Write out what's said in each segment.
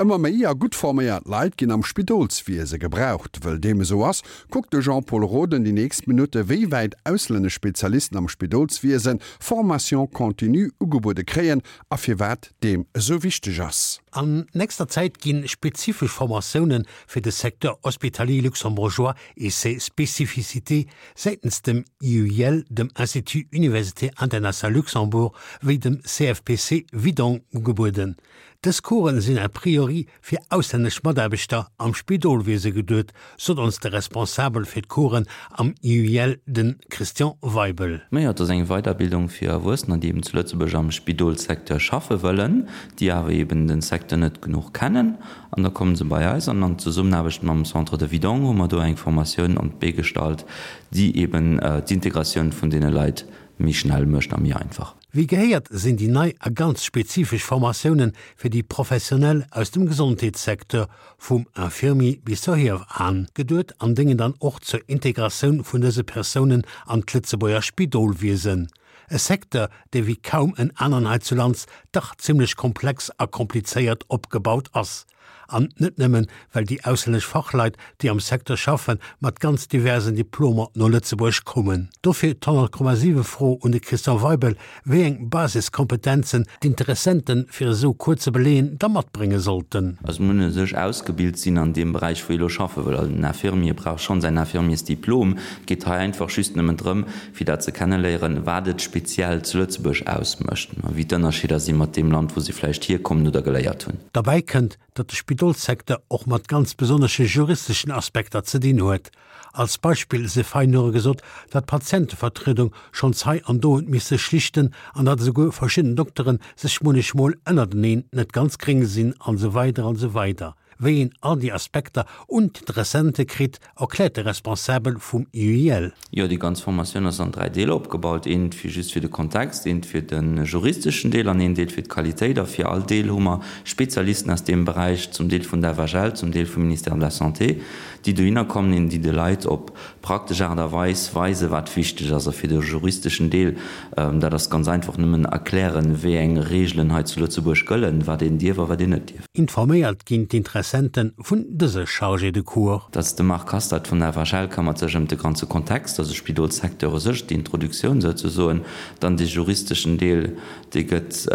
Ëmmer méi a gutt forméiert Leit ginn am Spidolswiese gebraucht. Wëll deem esou ass, kuckt de Jean-Pol Roden déi nächst Minutte wéi wäit auslännesch Spezialisten am Spidolswiese Formation continue ugebuede kréien a firwat deem esou wichteg ass. An nächster Zäit gi spezifesch Formatioune fir de Secteur hospitalier luxembourgeois et ses spécificités säitens dem IUIL, dem Institut Université International Luxembourg, wéi dem CFPC Widong ugebueden. Dës Coursen sinn a priori fir auslännesch Mataarbechter am Spidolwiese geduet, sot ons de Responsabel fir d'Coursen am IUIL, de Christian Weibel. Majo, et ass eng Weiderbildung fir Erwuessener, déi eben zu Lëtzebuerg am Spidolssecteur schaffe wëllen, déi awer eben de Secteur net genuch kennen. An da kommen se bei eis an an Zesummenaarbecht mam Centre de Vidong hu mer do eng Formatioun an d'Bee gestallt, déi eben d'Integratioun vun deene Leit méi schnell mécht a méi einfach. Wéi gehéiert sinn déi nei a ganz spezifesch Formatiounen fir déi Professionell aus dem Gesondheetssecteur, vum Infirmier bis zur Hiewan, geduet an déngen dann och zur Integratioun vun dëse Persounen an d'Lëtzebuerger Spidolwiesen. E Secteur, dee wéi kaum en aneren heizulands dach zimlech komplex a komplizéiert opgebaut ass. An net nëmmen, well déi auslännesch Fachleit, déi am Secteur schaffen, mat ganz diversen Diplomer no Lëtzebuerg kommen. Dofir d'100,7 Fro un de Christian Weibel, wéi eng Basiskompetenzen d'Interessenten fir esou Cours ze beleeën da matbrénge sollten. Also muss u sech ausgebilt sinn an deem Beräich, wou ee elo schaffe wëll. Also den Infirmier brauch schonn säin Infirmiersdiplom. Et geet hei einfach just nëmmen drëm, fir dat ze kenneléieren, wat et speziell zu Lëtzebuerg ausmécht a wéi d'Ënnerscheeder si mat deem Land, wou se vläicht hierkommen oder geléiert hunn. Derbäi kënnt, datt de Spidolssecteur och mat ganz besonnesche juristeschen Aspekter ze dinn huet. Als Beispill sief hei nure gesot, datt d'Patientevertriedung schonns hei an do huet misse schlichten an datt esouguer verschidden Doktere sech munnechmol ënnerteneen net ganz gréng sinn an esou weider an esou weider. Wéi een all déi Aspekter un d'Interessente kritt, erkläert de Responsabel vum IUIL. Jo, déi ganz Formatioun ass an 3 Deeler opgebaut, eent fir just fir de Kontext, eent fir de juristeschen Deel an een Deel fir d'Qualitéit. A fir all Deel hu mer Spezialisten aus deem Beräich, zum Deel vun der FHL, zum Deel vum Ministère de la Santé, déi dohinner kommen an déi de Leit op praktesch Aart a Weis weisen, wat wichteg ass. A fir de juristeschen Deel, dat ass ganz einfach, nëmmen erklären, wéi eng Reegelen hei zu Lëtzebuerg gëllen, wat een dierf a wat een net dierf. Informéiert ginn d'Interessente vun dëse Chargés de cours. Dat ass de Marc Hastert vun der FHL, këmmert sech ëm de ganze Kontext, also Spidolssecteur u sech, d'Introduktioun souzesoen. Dann dee juristeschen Deel, dee gëtt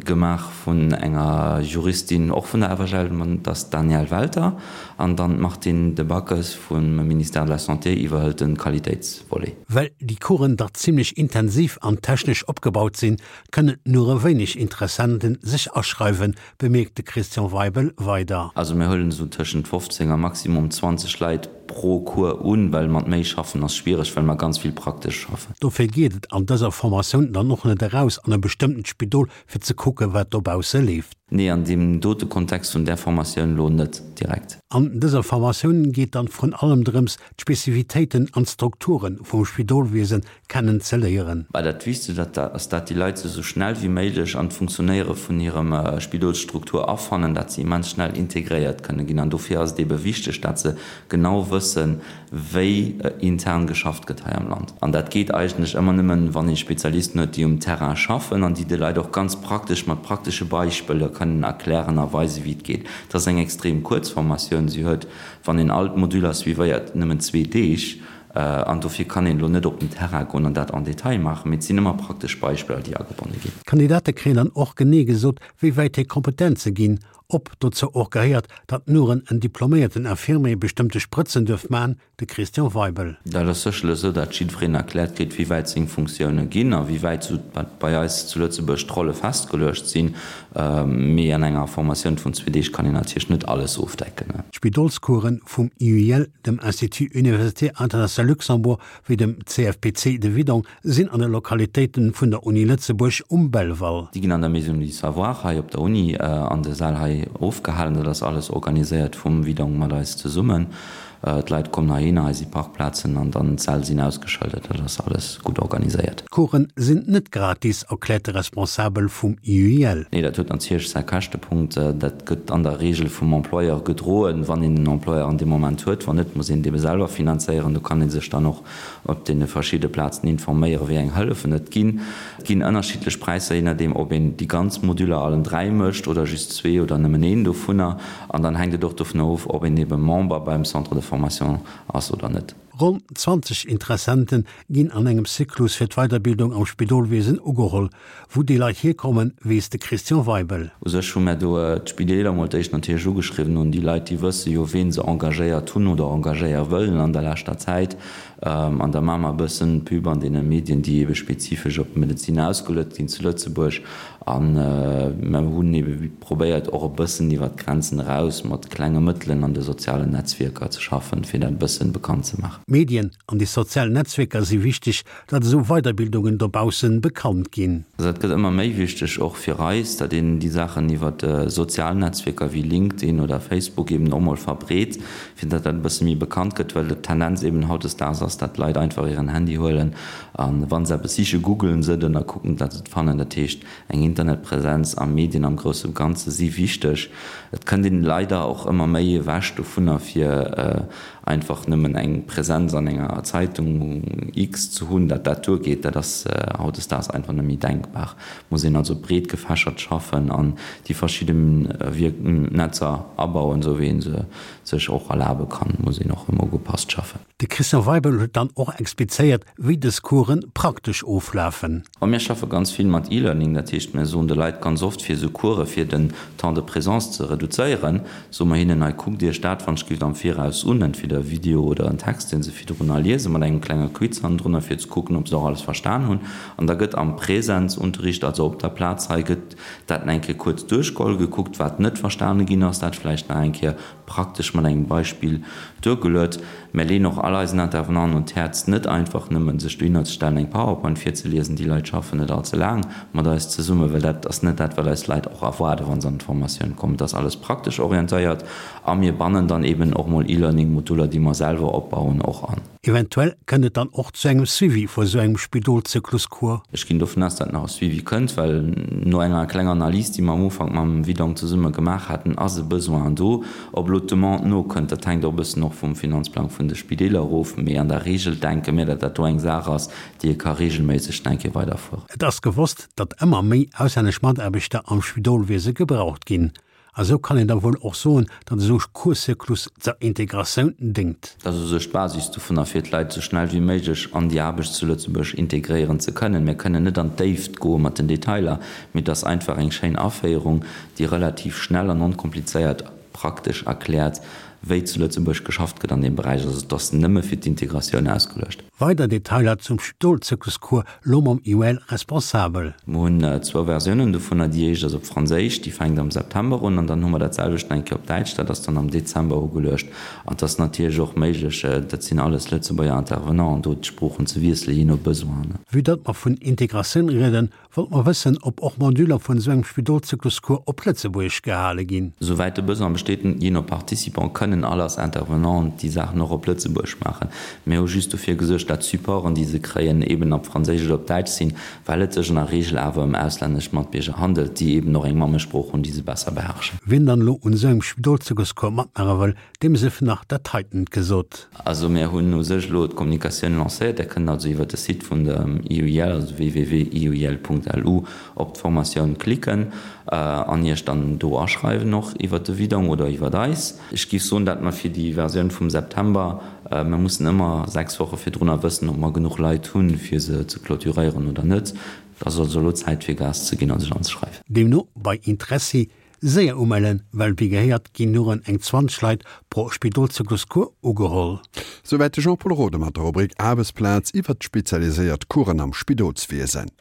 gemaach vun enger Juristin, och vun der FHL, dat ass d'Danièle Welter. An dann d'Martine Debackes vum Ministère de la Santé iwwerhëlt de Qualitéitsvolet. Well déi Coursen dach zimlech intensiv an technesch opgebaut sinn, kënnen nure wéineg Interessenten sech aschreiwen, bemierkt de Christian Weibel weider. Also mir huelen esou tëschent 15 a maximum 20 Leit pro Cours un, well mat méi schaffen ass schwiereg, well mer ganz vill praktesch schaffen. Dofir geet et an dëser Formatioun dann och net eraus an e bestëmmtent Spidol fir ze kucken, wat dobausse leeft. Nee, an deem dote Kontext vun där Formatioun elo net direkt. An dëser Formatioun geet dann vrun allem drëms, d'Spezifitéiten an d'Strukture vum Spidolwiesen kennen ze léieren. Mä dat Wichtegst ass, dat déi Leit sech esou schnell wéi méiglech an d'Funktionéiere vun hirem Spidolsstruktur afannen, dat se immens schnell integréiert kënne ginn. An dofir ass et ebe wichteg, dat se genau wëssen, wéi intern geschafft gëtt hei am Land. An dat geet eigentlech ëmmer nëmmen, wann ee Spezialisten huet, déi um Terrain schaffen an déi de Leit och ganz praktesch mat praktesche Beispiller kënnen erklären a weisen, wéi et geet. Et ass eng extrem kuerz Formatioun. Si huet, wann een all d'Moduler suivéiert, nëmmen zwee Deeg. An dofir kann een elo net op den Terrain goen an dat en détail maachen, mee et sinn ëmmer praktesch Beispiller, déi agebonne ginn. D'Kandidate kréien dann och genee gesot, wéi wäit hir Kompetenze ginn, ob dozou och gehéiert, datt nuren en diploméierten Infirmier bestëmmte Sprëtzen duerf man, de Christian Weibel. Dat ass sécherlech esou, dat jiddwereen erkläert kritt, wéi wäit seng Funktioune ginn a wéi wäit esou bei eis zu Lëtzebuerg d'Rolle festgeluecht sinn. Mee an enger Formatioun vun zwee Deeg kann een natierlech net alles ofdecken. D'Spidolscoursen vum IUIL, dem Institut Universitaire International Luxembourg, wéi dem CFPC de Widong sinn an de Lokalitéiten vun der Uni Lëtzebuerg um Belval. Déi ginn an der Maison du Savoir hei op der Uni an de Säll hei ofgehalen. Dat ass alles organiséiert vum Widong mat eis zesummen. D'Leit kommen heihinner, hei si Parkplazen an dann d'Säll sinn ausgeschëldert. Dat ass alles gutt organiséiert. D'Coursen sinn net gratis, erkläert de Responsabel vum IUIL. Nee, dat huet natierlech säi Käschtepunkt. Dat gëtt an der Reegel vum Employeur gedroen, wann een en Employeur an deem Moment huet. Wann net, muss een et ebe selwer finanzéieren. Do kann ee sech dann och op deene verschidde Plazen informéieren, wéi eng Hëllefen et ginn. Et ginn ënnerschiddlech Präisser, jee nodeem ob een déi ganz Moduler allen 3 mécht oder just zwee oder nëmmen een dovunner. An dann hänkt et och dovunner of, ob een ebe Member beim Centre de formation ass oder net. Ronn 20 Interessente ginn an engem Zyklus fir d'Weiderbildung am Spidolwiesen ugeholl. Wou déi Leit hierkommen, weess de Christian Weibel. U sech hu mär do d'Spideeler mol d'éischt natierlech ugeschriwwen un déi Leit, déi wësse jo, ween se engagéiert hunn oder engagéiere wëllen an der leschter Zäit. An da maache mer e bëssen Pub an deene Medien, déi ebe spezifesch op d'Medezin ausgeluet ginn zu Lëtzebuerg. A mer hunn ebe probéiert, och e bëssen iwwer d'Grenzen eraus mat klenge Mëttelen an de sozialen Netzwierker ze schaffen, fir dat e bëssen bekannt ze maachen. D'Medien an déi sozial Netzwierker si wichteg, datt esou Weiderbildungen dobaussen bekannt ginn. Dat gëtt ëmmer méi wichteg, och fir eis, datt een déi Saachen iwwer sozial Netzwierker wéi LinkedIn oder Facebook eben och mol verbreet, fir datt dat e bësse méi bekannt gëtt, well d'Tendenz eben hautdesdaags ass, datt d'Leit einfach hiren Handy huelen a wa se eppes siche googelen se et an da kucken, datt se et fannen. Dat heescht, eng Internetpräsenz a Medien am grousse Ganze si wichteg. Et kënnt een leider och ëmmer méi ewech dovunner, fir einfach nëmmen eng Präsenz an enger Zeitung X ze hunn, datt dat duergeet. Dat ass hautdesdaags einfach net méi denkbar. Et muss een also breet gefächert schaffen an déi verschidde Netzer abauen, esou wéi ee se sech och erlabe kann, muss een och ëmmer ugepasst schaffen. De Christian Weibel huet dann och explizéiert, wéi dës Coursen praktesch oflafen. Ma mir schaffe ganz vill mat E-Learning, dat heescht mir soen de Leit ganz oft fir esou Course fir den Temps de présence ze reduzéieren, soe mer hinnen, hei kuckt Iech dat wann ech gift am Viraus un, entweder e Video oder en Text dee se virdrunner liesen, mat engem klenge Quiz hannendrunner fir ze kucken ob se och alles verstan hunn. An da gëtt am Präsenzunterricht, also op der Plaz hei, gëtt dat nach eng Kéier kuerz duerchgeholl, gekuckt wat net verstane ginn ass, dat vläicht nach eng Kéier praktesch mat engem Beispill duergeluet. Mär leeën och all eisen Intervenanten un d'Häerz, net einfach nëmmen sech dohinner ze stellen, eng PowerPoint virzeliesen. Déi Leit schaffen net all ze laang mat eis zesummen, well dat ass net dat, wat eis Leit och erwaarden, wa se an d'Formatioun kommen. Et ass alles praktesch orientéiert a mir bannen dann eben och mol E-Learning-Moduler, déi mer selwer opbauen, och an. Eventuell kënnt et dann och zu engem Suivi vu sou engem Spidolzykluscours. Ech ginn dovun aus, datt nach e Suivi kënnt, well no enger klenger Analys, déi mer am Ufank mam Widong zesumme gemaach haten, ass e Besoin do. Ob elo d'Demande nokënnt, dat hänkt och e bëssen och vum Finanzplang vun de Spideeler erof. Mee an der Reegel denke mir, datt dat do eng Saach ass, déi ee ka reegelméisseg nach eng Kéier weiderfueren. Et ass gewosst, datt ëmmer méi auslännesch Mataarbechter am Spidolwiese gebraucht ginn. A sou kann een da wuel och soen, datt esou e Courszyklus zur Integratioun déngt. Dat ass u sech d'Basis dovunner, fir d'Leit esou schnell wéi méiglech an déi Aarbecht zu Lëtzebuerg integréieren ze kënnen. Mir kënnen net an d'Déift goe mat den Detailer, mee et ass einfach eng schéin Aféierung, déi relativ schnell an onkomplizéiert praktesch erkläert, wéi zu Lëtzebuerg geschafft gëtt an deem Beräich. Also et ass nëmme fir d'Integratioun ausgeluecht. Weider Detailer zum Stolzykluscours lo mam IUL Responsabel. Mer hunn zwou Versiounen dovunner. Déi éischt ass op Franséisch, déi fänkt am September un, an dann hu mer dat selwecht nach eng Kéier op Däitsch, dat ass dann am Dezember ugeluecht. An et ass natierlech och méiglech, dat sinn alles Lëtzebuerger Intervenanten, do d'Sproochen ze wiesselen, jee no Besoin. Vue datt mer vun Integratioun rieden, Wollt mer wëssen, ob och Moduler vun esou engem Spidolzykluscours op Lëtzebuergesch gehale ginn? Souwäit de Besoin besteet, jee no Participant, kënnen all eis Intervenanten déi Saachen och op Lëtzebuergesch maachen. Mir hu just dofir gesuergt, dat d'Supporten, déi se kréien, eben op Franséisch oder op Däitsch sinn, well et sech an der Reegel awer ëm auslännesch Matbierger handelt, déi eben och eng Mammesprooch hunn, déi se besser beherrschen. Wien dann elo un esou engem Spidolzykluscours matmaache wëll, Deem sief nach dat heiten gesot. Also mir hunn u sech elo d'Kommunikatioun lancéiert. Der kënnt also iwwert de Site vun dem IUIL, also www.iuil.lu, op d'Formatioun klicken an Iech dann do aschreiwen, och iwwert de Widong oder iwwert eis. Ech géif soen, dat mer fir déi Versioun vum September, mir mussen ëmmer 6 Woche virdrunner wëssen, ob mer genuch Leit hunn, fir se ze clôturéieren oder net. Et ass also elo Zäit fir Gas ze ginn a sech anzeschreiwen. Deemno bei Interessi Séier umellen, well wéi gehéiert ginn nuren eng 20 Leit pro Spidolzykluscours ugeholl. Souwäit de Jean-Pol Rode mat der Rubrik Aarbechtsplaz iwwert d'spezialiséiert Coursen am Spidolswiesen.